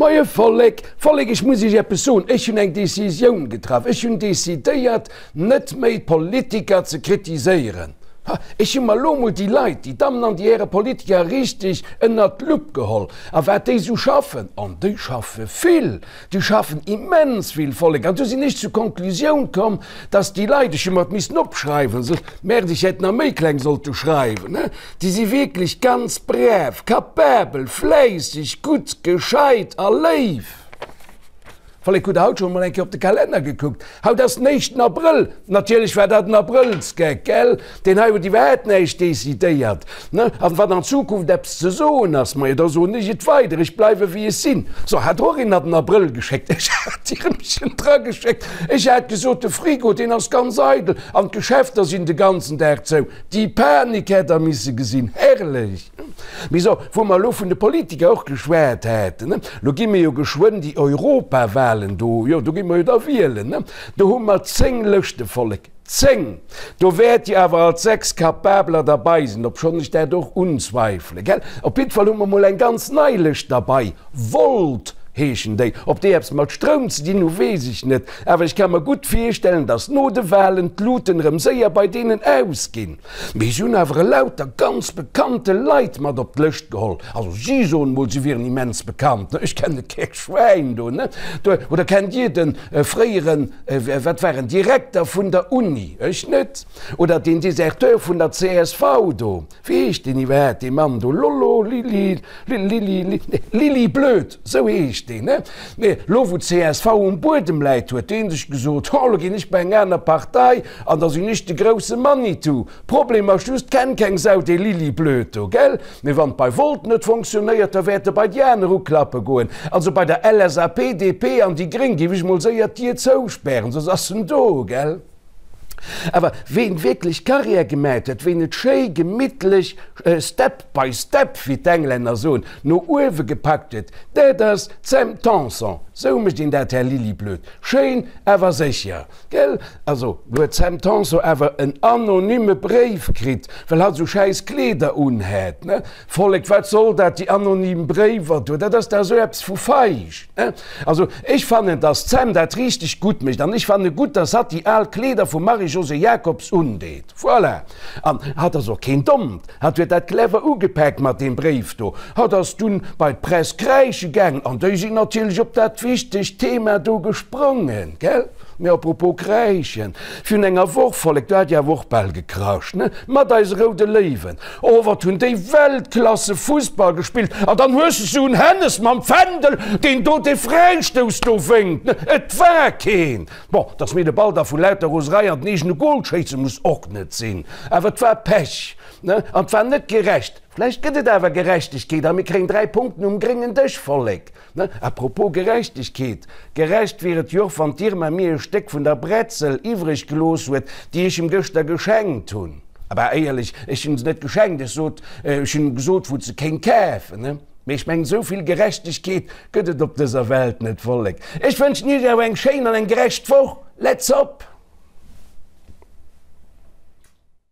Moie Vollek! Vollek, ech muss Iech eppes soen, Ech hunn eng Decisioun getraff. Ech hunn decidéiert, net méi d'Politiker ze kritiséieren. Ha, ech hu mer elo emol déi Leit, déi Dammen an déi Häre Politiker richteg ënnert d'Lupp geholl. A wat déi esou schaffen, an déi schaffe vill, déi schaffen immens vill, Vollek, an du sinn ech zur Konklusioun komm, dass déi Leit, ech hu mer et missen opschreiwen, soss, Merde, ech hätt nach méi kleng sollte schreiwen, he, Déi si wierklech ganz brav, kapabel, fläisseg, gutt, gescheit a léif. Vollek, hutt der haut schonn emol eng Kéier op de Kalenner gekuckt? Haut ass den éischten Abrëll. Natierlech war dat en Abrëllsgeck, gell? Deen hei huet iwwerhaapt näischt decidéiert, ne? An wann an Zukunft eppes ze soen ass, majo, da soen ech et weider. Ech bleiwe wéi ech sinn. So, hat och een an den Abrëll geschéckt. Ech hat d'Irmchen drageschéckt. Ech hat gesot, de Frigo, deen ass ganz eidel an d'Geschäfter sinn de ganzen Dag zou. Déi Panik hätt der misse gesinn, herrlech! Mee so, wou mer elo vun de Politiker och geschwat haten, lo gi mir jo geschwënn déi Europawahlen do, jo, do gi mer jo da wielen, do hu mer 10 Lëschte, Vollek, 10! Do wäert jo awer alt 6 Kapabeler derbei sinn, obschonn ech dat och unzweifele, gell? Op jiddwer Fall hu mer mol eng ganz nei Lëscht derbei, Volt heeschen déi. Ob déi eppes mat Stroum ze dinn hu weess ech net, awer ech ka mer gutt virstellen, datt no de Walen d'Luten erëm séier bei deenen ausginn. Mee si hunn awer elauter ganz bekannte Leit mat op d'Lëscht geholl. Also si soen mol, si wieren immens bekannt, ne? Ech kenne kee Schwäin do, ne? Oder kennt Dir de fréieren, wat war en, Direkter vun der Uni? Ech net. Oder deen Deserteur vun der csv do? Wéi heescht deen iwwerhaapt, dee Mann do? Lollo, Lili, Lili, nee, Lili Blöd, sou heescht deen, ne? Nee, lo wou d'CSV um Buedem läit, huet dee sech gesot, Ho, lo ginn ech bei eng aner Partei an da sinn ech de grousse Manitou. Problem ass just, kennt keng Sau dee Lili Blöd do, gell? Mee wann et bei Volt net fonctionnéiert, da wäert e bei déi aner uklappe goen. Also bei der LSAP, DP an déi Gréng géif ech mol séier d'Dier zouspären, soss ass en do, gell? Awer ween wierklech Carrière gemat huet, ween et schéi gemittlech step by step, wéi d'Englänner soen, no uewe gepackt huet, dat ass d'Sam Tanson. Sou mécht een dat, Här Liliblöd. Schéin, awer sécher, gell? Also, lo huet d'Sam Tanson awer en anonyme Bréif kritt, well hatt sou schäiss Kleeder unhat, ne? Vollek, wat soll dat, déi anonym Bréiwer do, dat ass dach esou eppes vu feig, ne? Also, ech fannen, dass d'Sam dat richteg gutt mécht an ech fanne gutt, dass hatt déi al Kleeder vum Marie-Josée Jacobs undeet. Voilà! An hatt ass och keen Dommt, hatt huet dat clever ugepaakt mat deem Bréif do. Hatt ass dunn bei d'Press kräische gaangen an déi sinn natierlech op dat wichtegt Thema do gesprongen, gell? Mee apropos kräischen, virun enger Woch, Vollek, do hat jo awer och bal gekrascht, ne? Mat eise Roude Léiwen. Oh, wat hunn déi Weltklasse Fussball gespillt! An dann hues de sou en Hennes mam Fändel, deen do dee Fräistouss do wénkt, ne? Et war keen! Bon, dass mir de Ball da vu lauter Roserei an den eegene Gol schéisse muss och net sinn, awer et war Pech, ne? An et war net gerecht. Vläicht gëtt et awer Gerechtegkeet a mir kréien 3 Punkten um gréngen Dësch, Vollek. Ne, à propos Gerechtegkeet, gerecht wier et jo och, wann d'Irma mir e Stéck vun der Bretzel iwwreg gelooss huet, déi ech em gëschter geschenkt hunn. Bah, éierlech, ech hunn se net geschenkt, ech sot, ech hunn em gesot, wou se kéint kafen, ne. Mee ech mengen, esou vill Gerechtegkeet gëtt et op dëser Welt net, Vollek. Ech wënschen iech awer eng schéin an eng gerecht Woch. Let's op!